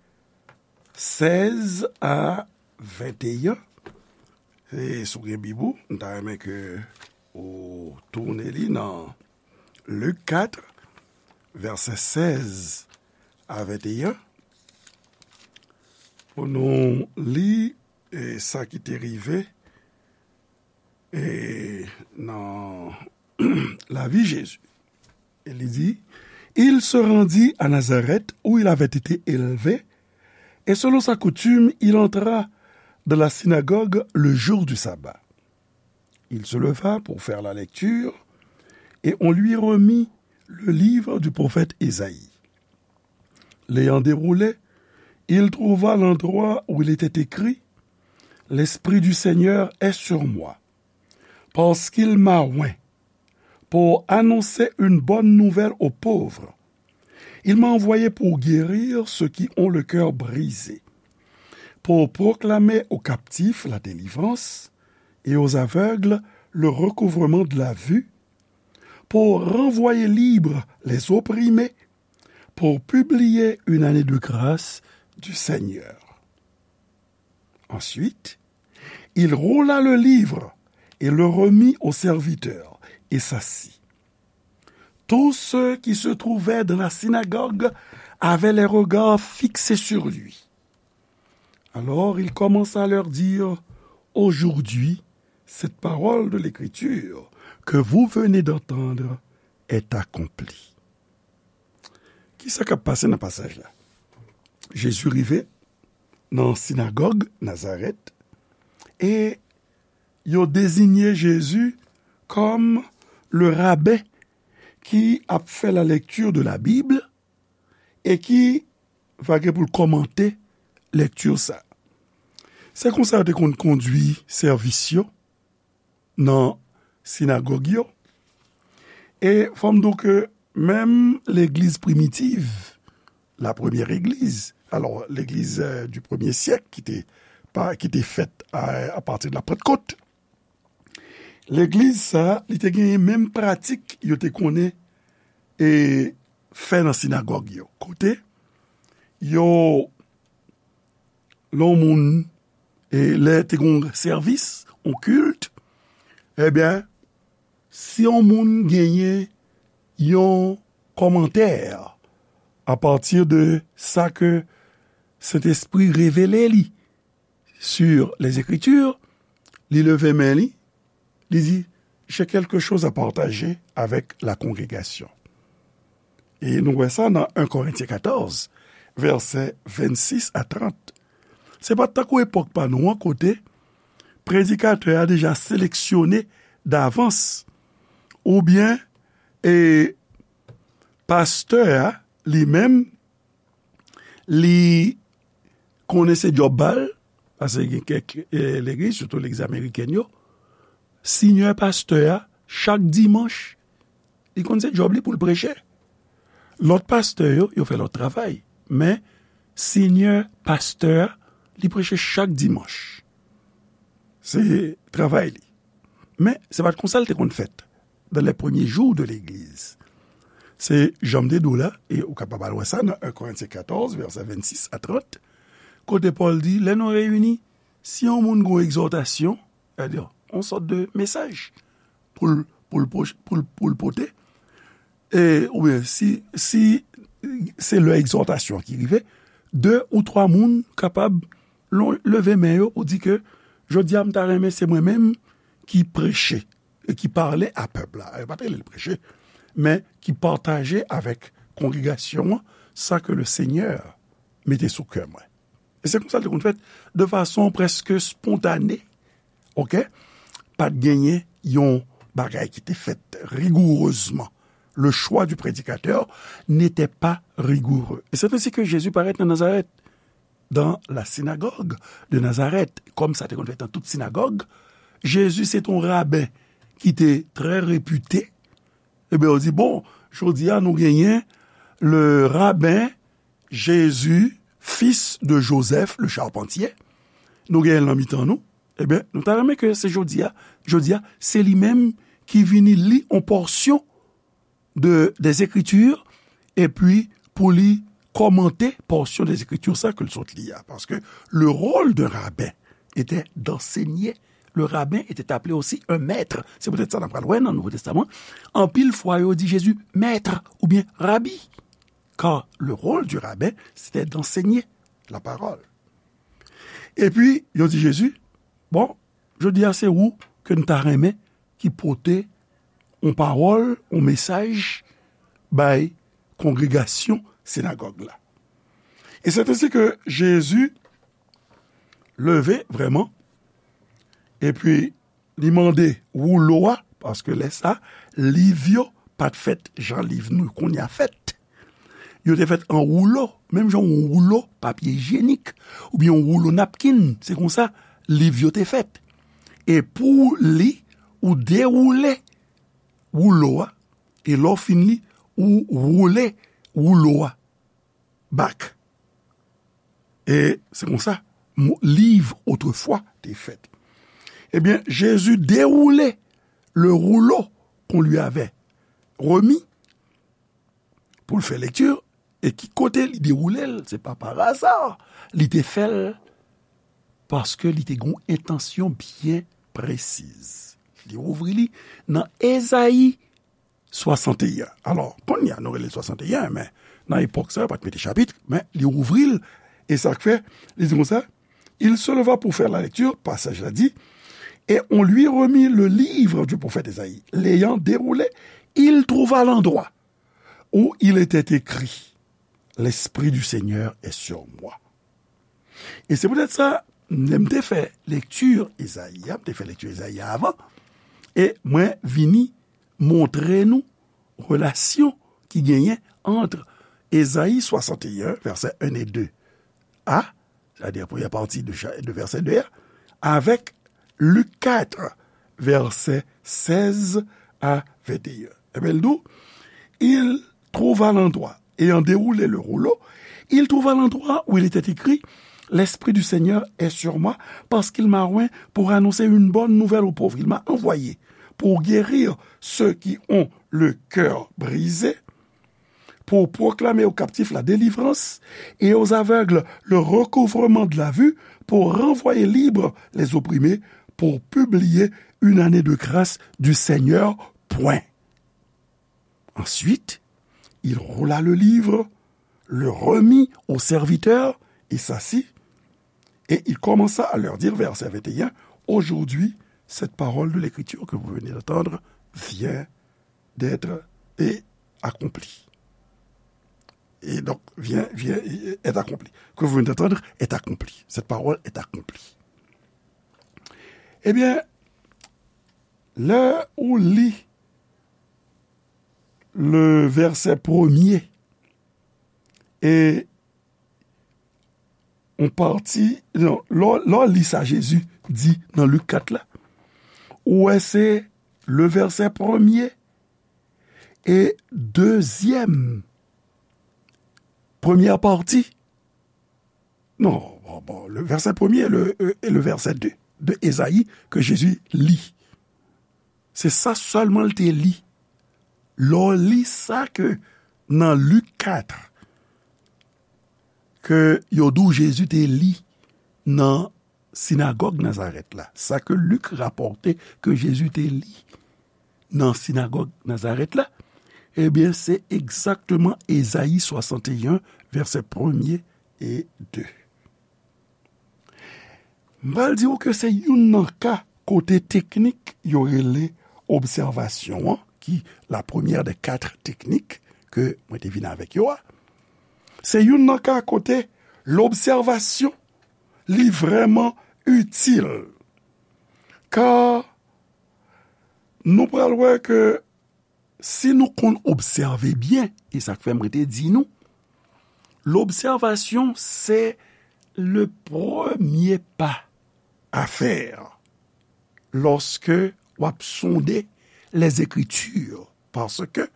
sèz a venteyen. E si w gen Bib ou, m ta renmen ke ou tounen li nan Lik kat, vèsè sèz a venteyen, pou nou li, e, sa ki te rive, e, nan lavi Jezi. E li di, Il se rendit à Nazareth où il avait été élevé, et selon sa coutume, il entra dans la synagogue le jour du sabbat. Il se leva pour faire la lecture, et on lui remit le livre du prophète Ésaïe. L'ayant déroulé, il trouva l'endroit où il était écrit, L'Esprit du Seigneur est sur moi, parce qu'il m'a oint pour annoncer une bonne nouvelle aux pauvres. Il m'a envoyé pour guérir ceux qui ont le cœur brisé, pour proclamer aux captifs la délivrance et aux aveugles le recouvrement de la vue, pour renvoyer libres les opprimés, pour publier une année de grâce du Seigneur. Ensuite, il roula le livre et le remit au serviteur et s'assit. Tous ceux qui se trouvaient dans la synagogue avaient les regards fixés sur lui. Alors il commença à leur dire, Aujourd'hui, cette parole de l'Écriture que vous venez d'entendre est accomplie. Kisa k ap pase nan pasaj la? Jezi rive nan sinagòg Nazarèt e yo deziye Jezi kòm le rabbin ki ap fè la lecture de la Bible e ki va gen pou l kòmante lèkti sa. Se konsa yo te konn kondui sèvis yo nan sinagòg yo. E fò m di w ke menm legliz primitiv, la première église, alò, legliz, euh, du premier siècle ki te, pa, ki te fèt a, a pati de la Pantkot, legliz sa, li te genyen menm pratik yo te konnen e fè nan sinagòg yo. Kote yo, lè yon moun, e lè te gen yon sèvis, yon kilt, ebyen, si yon moun genyen yon kòmantè apati de sa ke Sentespri revele li sur les Écritures, li leve men li, li di, j'ai quelque chose à partager avec la congrégation. E nou wè sa nan en Korentyen katòz, vèsè vennsis a trant. Se pa tankou epòk pa nou an kote predikatè a deja seleksyone davans, oubyen, e, pastè a li menm, li konnen se djòb pa l, paske gen kèk, e, legliz, sitou legliz amerikèn yo, senyè pastè a, chak dimanch, li konn se djòb li pou l preche. Lòt pastè yo, yo fè lòt travay. Men, senyè pastè a, li preche chak dimanch. Se travay li. Men, se pa t konsa l te konn fèt dans les premiers jours de l'église. Se jan m te di w la, e ou kapab al wè sa nan en Korentyen katòz, vèsè vennsis a trant, kote Pòl di, lè nou reyini, si yon moun gen yon egzòtasyon, sètadi, yon sòt de mesaj pou l, pou l, pou l, pou l pote, e, oubyen si, si se lè egzòtasyon ki rive, de ou twa moun kapab lon-, leve men yo pou di ke, jodi a, m ta renmen se mwen menm ki preche e ki pale a pèp la. Yo pa t rele l preche, men ki pataje avèk kongregasyon an sa ke le Senyè mete sou kè mwen. E se konsa l te konn fèt, de fason prèske spontane, oke? Pa t genyen yon bagay ki te fèt rigourezman. Le choix du prédicateur n'était pas rigoureux. Et c'est ainsi que Jésus paraît dans Nazareth, dans la synagogue de Nazareth, kòm sa te konn fèt nan tout sinagòg. Jezi se te yon raben ki te trè repite. Ebyen, yo di, bon, jodi a, nou genyen le raben Jésus, fils de Joseph, le charpentier. Nou genyen l nan mitan nou. Ebyen, nou ta renmen ke se jodi a, jodi a, se li menm ki vini li yon pòsyon de, des Écritures, epi pou li kòmante pòsyon des Écritures sa ke l sot li a. Paske le rôle d'un rabbin était d'enseigner. Le rabbin était appelé aussi un maître. Se poutèt sa n ap pral wè nan Nouvo Testaman. Anpil fwa, yo di Jezi, maître oubyen rabi. Car le rôle du rabbin, c'était d'enseigner la parole. Epi, yo di Jezi, bon, jodi a se ou ke n ta renmen ki pote yon pawòl, yon mesaj bay kongregasyon sinagòg la. E se te si ke Jezi leve vrèman, epi li mande woulo a, paske lè sa, liv yo pa t fèt jan liv nou kounye a fèt. Yo te fèt an woulo, menm jan yon woulo papye ijyenik, oubyen yon woulo napkin, se konsa liv yo te fèt. E pou li, ou dewoule woulo a, e lè w fin li, ou woule woulo a back. E se konsa, mo-, liv otrefwa te fèt. Ebyen, Jezi dewoule le rouleau qu'on lui avait remis pou l fè lekti, e ki kote li dewoule l, se pa pa aza, li te fè l paske li te gen yon entansyon byen presiz. Li ouvri li nan Ezayi swasanteyen. Alò, kounye a, nou rele l swasanteyen, men nan epòk sa, yo pa t mete chapit, men li ouvri l, e sa k fè, li di konsa, il se leva pour faire la lecture, passage la dit, et on lui remit le livre du prophète Esaïe. L'ayant déroulé, il trouva l'endroit où il était écrit, L'Esprit du Seigneur est sur moi. E se poutèt sa, lè m te fè lekti Ezayi a, m te fè lekti Ezayi a avan, e mwen vini montre nou relasyon ki genyen ant Ezayi swasanteyen, vèsè en e de a, sètadi premyè pati de cha-, de vèsè de a, avèk Lik kat, vèsè sèz a venteyen. Ebyen, l di w, il trouva l'endroit, ayant déroulé le rouleau, il trouva l'endroit où il était écrit, L'Esprit du Seigneur est sur moi, parce qu'il m'a oint pour annoncer une bonne nouvelle aux pauvres. Il m'a envoyé pour guérir ceux qui ont le cœur brisé, pour proclamer aux captifs la délivrance et aux aveugles le recouvrement de la vue, pour renvoyer libres les opprimés, pour publier une année de grâce du Seigneur, point. Ensuite, il roula le livre, le remit au serviteur, et s'assit, et il commença à leur dire, verset vingt et un, Aujourd'hui, cette parole de l'Écriture que vous venez d'entendre vient d'être et accomplie. Et donc, vient, vient, est accomplie. Que vous venez d'entendre est accomplie. Cette parole est accomplie. Ebyen, lè ou li le vèsè premye e yon pati, non, lè w, lè w li sa Jezi di nan Lik kat la, ou wè se le vèsè premye e dezyèm, premyè pati. Non, bon, bon, le vèsè premye e le, e, e le vèsè de, de Ezayi ke Jezi li. Se sa sèlman l te li. Lè w li sa ke nan Lik kat, ke yo di w Jezi te li nan sinagòg Nazarèt la, sa ke Lik rapòte ke Jezi te li nan sinagòg Nazarèt la, ebyen, se egzakteman Ezayi swasanteyen, vèsè premye e de. M pral di w ke se youn nan ka kote teknik yo rele obsèvasyon an, ki la première des quatre techniques ke mwen te vin avèk yo a. Se youn nan ka kote lobsèvasyon, li vrèman itil. Ka nou pral wè ke si nou konn obsève byen, e sa k fè mwen te di nou, lobsèvasyon se le premye pa a fè lòske w ap sonde Lèzekritir, paske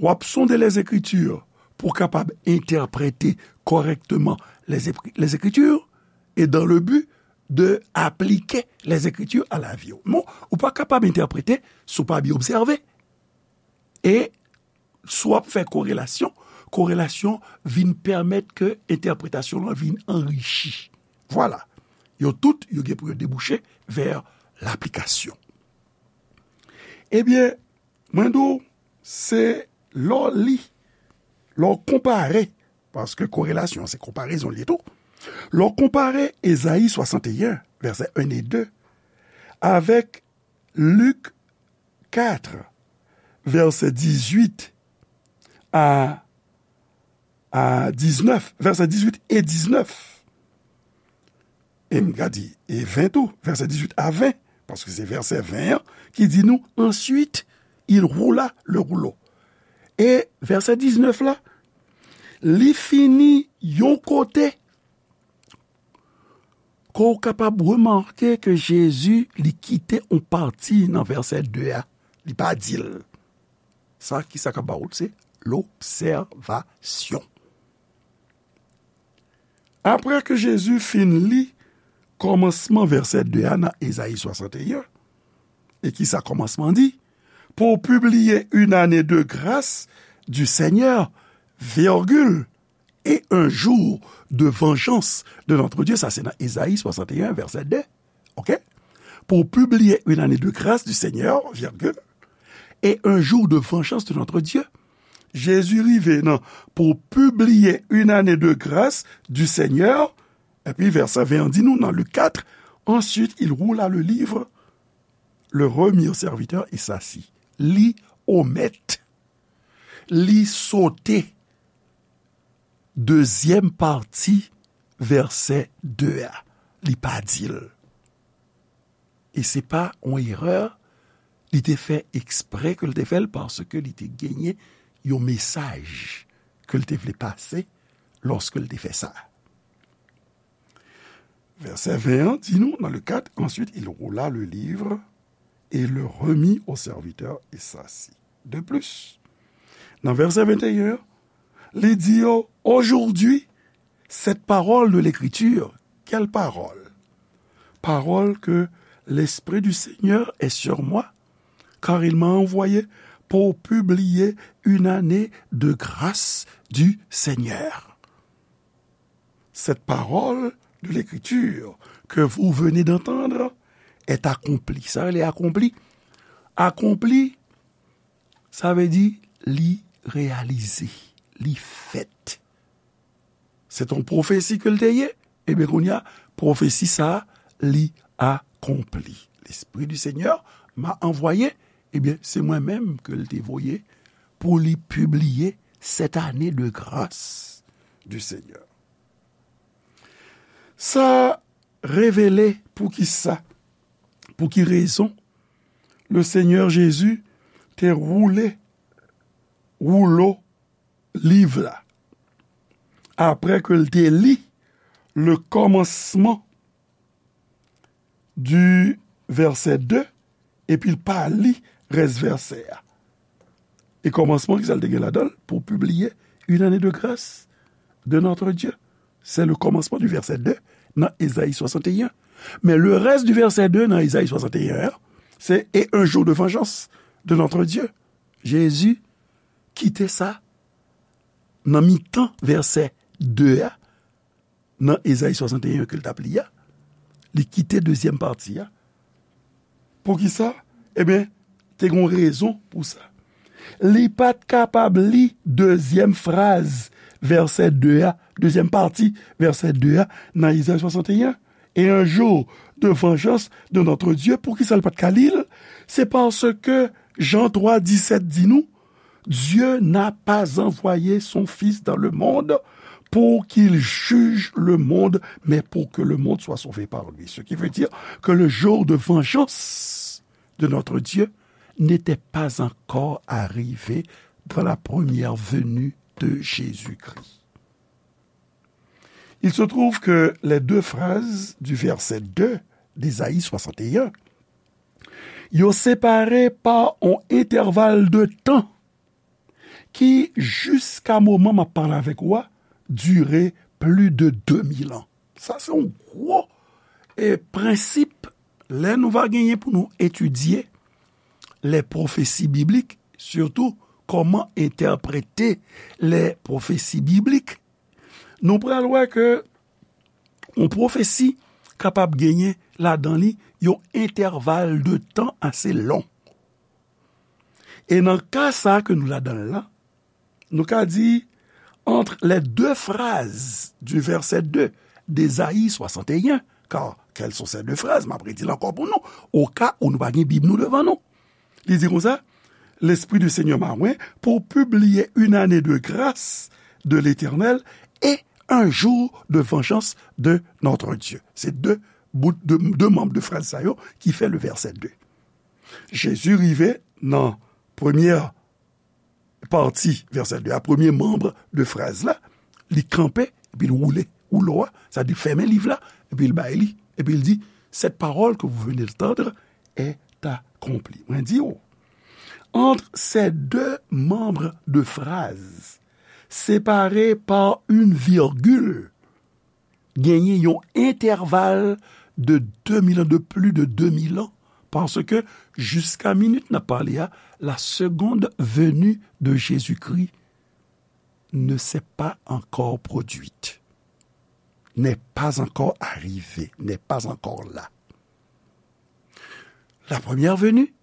w ap sonde Lèzekritir pou w kapab entèprete kòrèkteman Lèzekri-, Lèzekritir, e dans le but de aplike Lèzekritir a lavi w. Non, ou pa kapab entèprete si w pa byen obsève. E si w ap fè korelasyon, korelasyon vin pèmèt ke entèpretasyon lan vin anrichi. Vwala. Yo tout, yo gen pou yo debouche vè laplikasyon. Ebyen, mwen di w, se lè w li, lè w konpare, paske korelasyon se konparezon l ye tou. Lè w konpare Ezayi swasanteyen, vèsè en e de, avèk Lik kat, vèsè dizuit a, a diznèf, vèsè dizuit e diznèf. E m ka di, e ven tou, vèsè dizuit a ven, paske se vèsè ven an ki di nou, Ensuite, il roula le rouleau. E vèsè diznèf la, li fini yon kote ke w kapab remake ke Jezi, li kite yon pati nan vèsè de a. Li pa di l. Sa, ki sa k ap ba w l? Se lobsèvasyon. Apre ke Jezi fin li kòmansman vèsè de a nan Ezayi swasanteyen, e ki sa kòmansman di? Pour publier une année de grâce du Seigneur, virgule, et un jour de vengeance de notre Dieu. Sa se nan Ezayi swasanteyen, vèsè de. Ok? Pour publier une année de grâce du Seigneur, virgule, et un jour de vengeance de notre Dieu. Jezi rive nan pour publier une année de grâce du Seigneur, epi vèsè ven an di nou nan Lik kat, Ensuite, il roula le livre, le remit au serviteur et s'assit. Li omèt, li sote dezyèm pati vèsè de a. Li pa di l. E se pa yon erè Li te fè eksprè ke l te fè l, paske li te genyen yon mesaj ke l te vle pase lòske l te fè sa. Vèsè ven an di nou, nan le kat, ensuite il roula le livre et le remit au serviteur et s'assit. De plus, nan vèsè venteyen an, li di yo, aujourd'hui, cette parole de l'Écriture, quelle parole? Parole que l'Esprit du Seigneur est sur moi, car il m'a envoyé pour publier une année de grâce du Seigneur. Cette parole de l'Écriture que vous venez d'entendre est accomplie. Sa rele akonpli. Akonpli, sa vle di li reyalize, li fèt. Se t on pwofesi ke l te ye. Ebyen, kounye a, pwofesi sa a, li akonpli. L'Esprit du Seigneur m'a envoyé. Ebyen, se mwen menm ke l te voye pou li pibliye cette année de grâce du Seigneur. Sa revele poukisa, pou ki rezon le Seigneur Jésus te woule woulo liv la. Apre ke l te li le kòmansman du vèsè de, epi l pa li rès vèsè a. E kòmansman, ki sa l te gen ladan l? Pour publier une année de grâce de notre Dieu. C'est le commencement du verset deux nan Ezayi swasanteyen. Men le rès du verset deux nan Ezayi swasanteyen an, se et un jour de vengeance de notre Dieu. Jezi kite sa nan mitan vèsè de a, nan Ezayi swasanteyen ke l t ap li a, li kite dezyèm pati a. Poukisa? Ebyen, te gen yon rezon pou sa. Li pa t kapab li dezyèm fraz vèsè de a, dezyèm pati vèsè de a nan Ezayi swasanteyen. Et un jour de vengeance de notre Dieu. Poukisa l pa t ka li l? Se paske Jan twa disèt di nou, Dieu n'a pas envoyé son Fils dans le monde pour qu'il juge le monde, mais pour que le monde soit sauvé par lui. Ce qui veut dire que le jour de vengeance de notre Dieu n'était pas encore arrivé dans la première venue de Jésus-Christ. Il se trouve que les deux phrases du verset deux d'Ésaïe soixante et un, yo separe pa yon entèval de tan ki, jiska moman m ap pale avèk ou a, dire plis de de mil an. Sa se yon gwo, e, prensip lè nou va genyen pou nou etidye les prophéties bibliques, sitou kòman entèprete les prophéties bibliques. Nou pral wè ke yon pwofesi kapab genyen ladan li yon entèval de tan ase lon. E nan ka sa a ke nou ladan l la, nou ka di, entre les deux phrases du verset deux d'Ésaïe soixante et un, car quelles sont ces deux phrases? M ap redi l ankò pou nou, o ka ou nou pa gen Bib nou devan nou. Li di konsa, L'Esprit du Seigneur m'a oint pour publier une année de grâce de l'Éternel et un jour de vengeance de notre Dieu. Se de bout, de, de manm de fraz sa yo ki fè le vèsè de. Jezi rive nan premyè pati vèsè de a, premye manm de fraz la, li kanpe, epi l woule woulo a, sa di fèmen liv la, epi l bay li, epi l di, cette parole que vous venez d'entendre est accomplie. Mwen di w, entre ces deux membres de phrase, séparés par une virgule, genyen yon entèval de de mil an, de plis de de mil an, paske jiska minit n ap pale a, la seconde venue de Jésus-Christ ne s'est pas encore produite, n'est pas encore arrivée, n'est pas encore là. La première venue,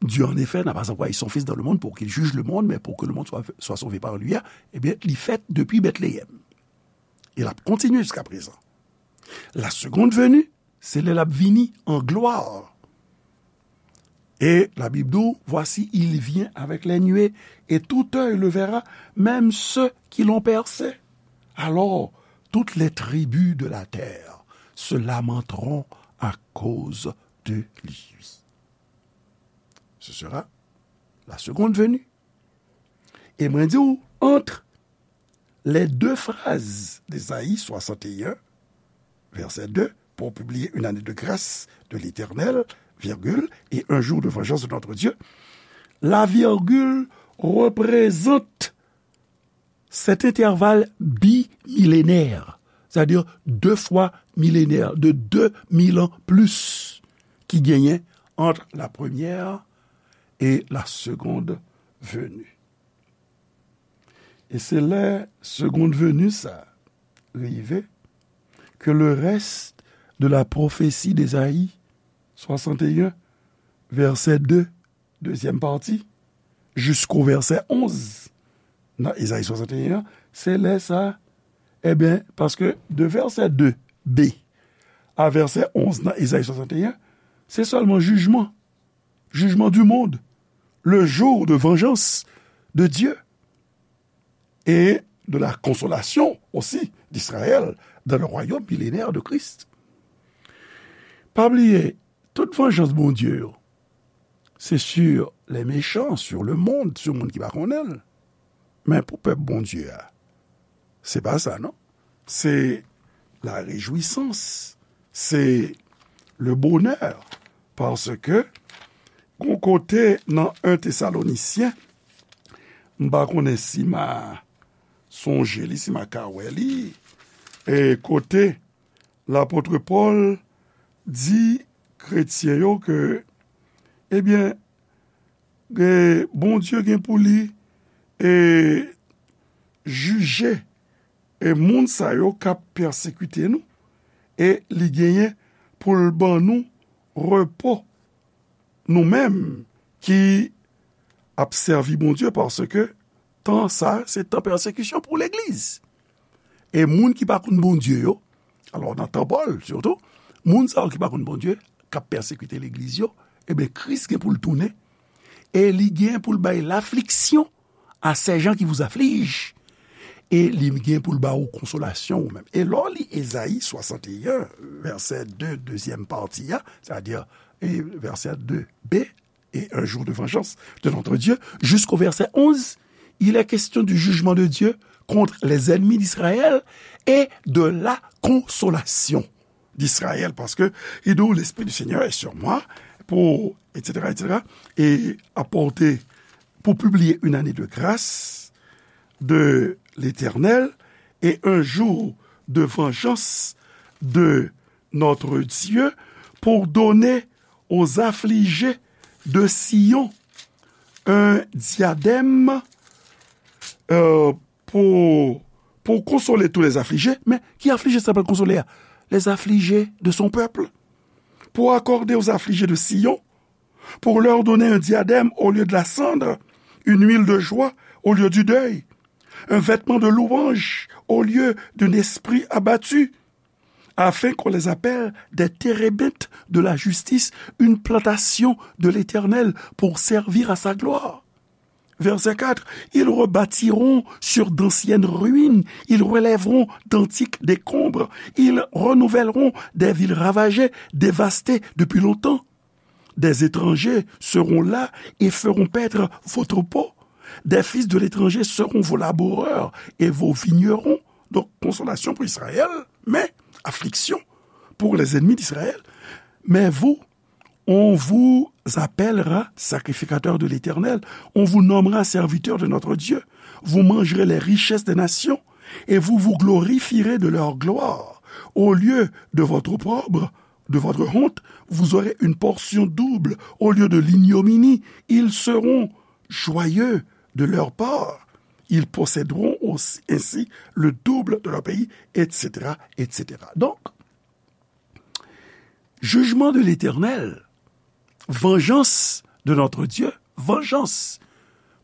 Dieu en effet n'a pas envoyé son Fils dans le monde pour qu'il juge le monde, mais pour que le monde soit, soit sauvé par lui, ebyen, li fèt depi Bètleyèm. E l ap kontinye jiska prezan. La seconde venue, se lè l ap vini an glwa. Et la Bible dit, voici, il vient avec les nuées, et tout œil le verra, même ceux qui l'ont percé. Alors, toutes les tribus de la terre se lamenteront à cause de lui. Ce sera la seconde venue. E mwen di w, entre les deux phrases d'Ésaïe soixante et un, verset deux, pour publier une année de grâce de l'Éternel, virgule, et un jour de vengeance de notre Dieu, la virgule représente cet intervalle bimilénaire, c'est-à-dire deux fois millénaire, de deux mille ans plus, ki genyen entre la première et la seconde venue. E se lè seconde venue sa rive ke le reste de la prophétie d'Ésaïe soixante et un, verset deux, deuxième partie, jusqu'au verset onze nan Ezayi soixante et un, se lè sa, ebyen, paske de verset deux b a verset onze nan Ezayi soixante et un, se sèlman jijman, jugement du monde, le jour de vengeance de Dieu et de la consolation aussi d'Israël dans le royaume millénaire de Christ. Pa bliye, tout vanjans Bondye yo, se sur les méchants, sur le monde, sou moun ki pa konnen l. Men pou pèp Bondye a, se pa sa, non. Se la rejwisans, se le bonè, paske gon kote nan en Tesalonisyen, m pa konnen si m a sonje li, si m a ka wè li, e kote lapot Pòl di kretyen yo ke, ebyen, e, Bondye gen pou li, e, jije, e, moun sa yo k ap pèsekite nou, e li genyen pou l ban nou repo, nou menm ki ap sèvi Bondye, paske tan sa, se tan pèsekisyon pou legliz. E moun ki pa konn Bondye yo, alò nan tan Pòl sitou, moun sa yo ki pa konn Bondye, k ap pèsekite legliz yo, ebyen, Kris gen pou l tounen, e li gen pou l bay lafliksyon à ces gens qui vous affligent, e li gen pou l ba ou konsolasyon ou menm. E lè w li Ezayi swasannteyen, vèsè de, dezyèm pati a, sètadi, e vèsè de b, et un jour de vengeance de notre Dieu, jusqu'au verset onze, il est question du jugement de Dieu contre les ennemis d'Israël et de la consolation d'Israël, parce que il dit, l'Esprit du Seigneur est sur moi pour, et cetera, et cetera, et apporter, pour publier une année de grâce de l'Éternel et un jour de vengeance de notre Dieu, pour donner aux affligés de Sion un diadème, euh, pour, pour consoler tous les affligés. Men ki aflije sa pral konsole a? Les affligés de son peuple. Pour accorder aux affligés de Sion, pour leur donner un diadème au lieu de la cendre, une huile de joie au lieu du deuil, un vêtement de louange au lieu d'un esprit abattu, afin qu'on les appelle des térébinthes de la justice, une plantation de l'Éternel pour servir à sa gloire. Verset quatre, ils rebâtiront sur d'anciennes ruines, ils relèveront d'antiques décombres, ils renouvelleront des villes ravagées, dévastées depuis longtemps. Des étrangers seront là et feront paître vos troupeaux. Des fils de l'étranger seront vos laboureurs et vos vignerons. Donc, consolation pour Israël, mais affliction pour les ennemis d'Israël. Mais vous, on vous appellera sacrificateur de l'Éternel, on vous nommera serviteur de notre Dieu. Vous mangerez les richesses des nations et vous vous glorifierez de leur gloire. Au lieu de votre opprobre, de votre honte, vous aurez une portion double au lieu de l'ignominie. Ils seront joyeux de leur part. Ils posséderont aussi, ainsi le double de leur pays, et cetera, et cetera. Donc, jugement de l'Éternel, vengeance de notre Dieu, vengeance.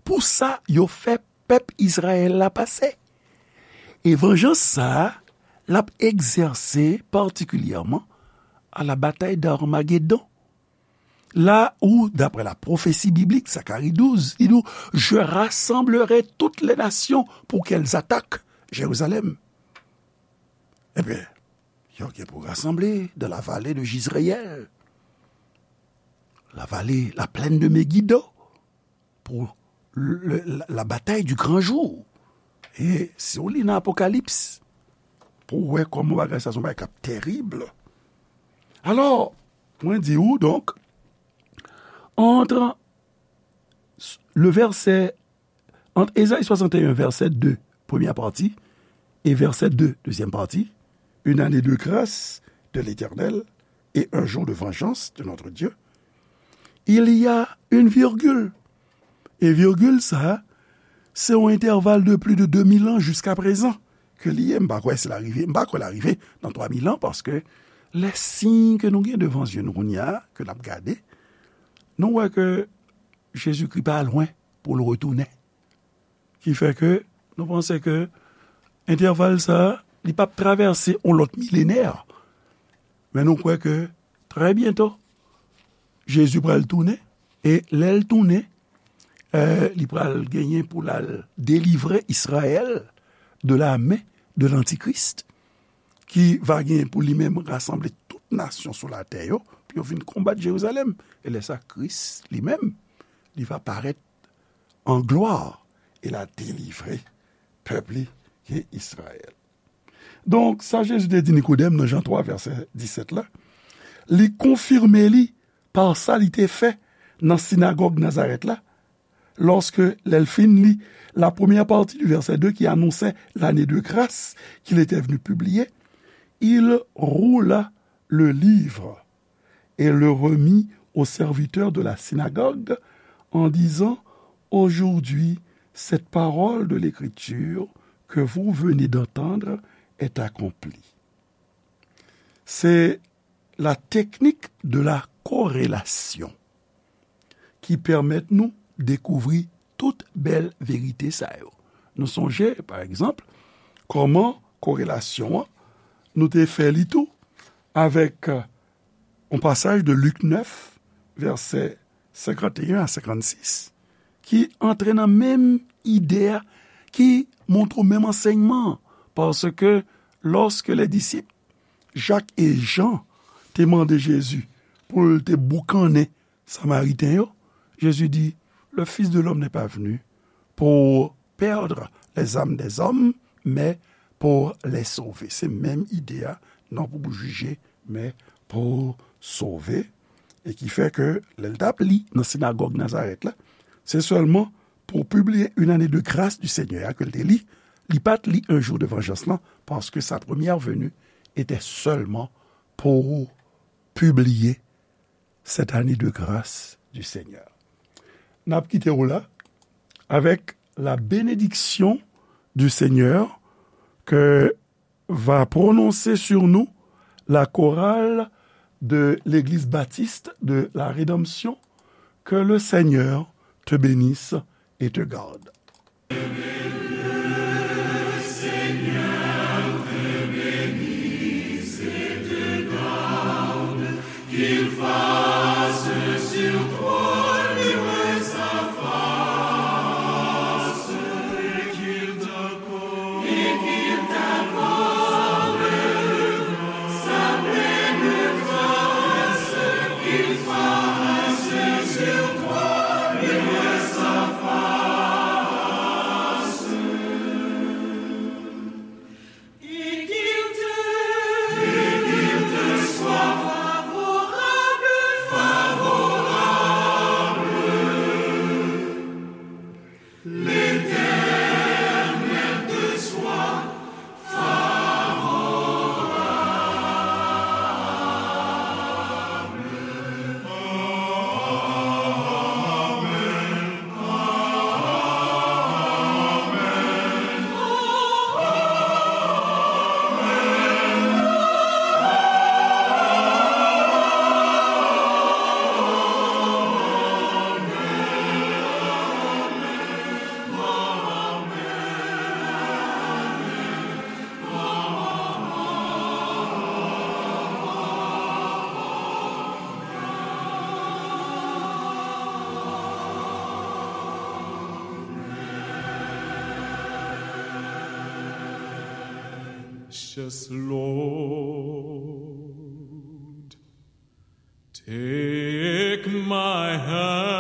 Pou sa, yo fè pèp Izrayèl la pase. E vanjans sa a, l ap egzèse patikilyèman à la bataille d'Armagédon. Là où, d'après la prophétie biblique, Zacharie douze, il dit, je rassemblerai toutes les nations pour qu'elles attaquent Jérusalem. Ebyen, yo gen pou rasanble dans la vallée de Jizréel. la vallée, la plaine de Megiddo, pour le, la, la bataille du grand jour. E si w li nan Apokalips, pou w wè kòman bagay sa se yon bagay k ap tèrib. Alò, mwen di ou, donk, entre le verset, entre Ésaïe soixante et un, verset deux, première partie, et verset deux, deuxième partie, une année de grâce de l'Éternel et un jour de vengeance de notre Dieu, il y a une virgule. E virgil sa, se yon entèval de plis de de mil an jiska prezan ke li ye. M pa kwè si l a rive, m pa kwè l a rive nan twa mil an, paske lè siy ke nou gen devan zye nou kounye a, ke n ap gade, nou wè ke Jezikri pa lwen pou l retounen. Ki fè ke nou panse ke entèval sa, li p ap travèse yon lòt milenè. Men nou kwè ke trè byento, Jezi pral tounen, e lè l tounen, eh, li pral genyen pou l al delivre Izrayèl de la men de lantikris, ki va genyen pou li menm rasanble tout nasyon sou latè yo, pou yo vin konbat Jerizalèm. E lè sa, Kris li menm, li va parèt an glwa, e l a delivre pèp li ki Izrayèl. Donk, sa Jezi te di Nikodèm nan Jan twa, vèsè disèt la, li konfime li pa sa li te fè nan sinagòg Nazarèt la, lòske, lè l fin li la première partie du verset deux qui annonçait l'année de grâce qu'il était venu publier, il roula le livre et le remit au serviteur de la synagogue en disant, aujourd'hui, cette parole de l'Écriture que vous venez d'entendre est accomplie. Se la technique de la corrélation ki pèmèt nou dekouvri tout bèl verite sa yo. Nou sonje, pa egzanp, kòman korelasyon an, nou te fè li tou avèk, euh, yon pasaj de Lik nèf, vèsè senkanteyen a senkannsis, ki antre nan menm ide a, ki montre w menm ansèyman an, paske lòske lè disip Jak e Jan te mande Jezi pou l te boukannen Samariten yo, Jezi di, le Fils de l'homme n'est pas venu pour perdre les âmes des hommes, mais pour les sauver. Se menm ide a, non pou jije, men pou sove. E ki fè ke lè l t ap li nan sinagòg Nazarèt la, se sèlman pour publier une année de grâce du Seigneur ke l te li, li pa t li un jour de vengeance lan, paske sa première venue était seulement pour publier cette année de grâce du Seigneur. N ap kite w la avec la bénédiction du Seigneur que va prononcer sur nous la chorale de l'Église baptiste de la Rédemption. Que le Seigneur te bénisse et te garde. Precious Lord, take my hand.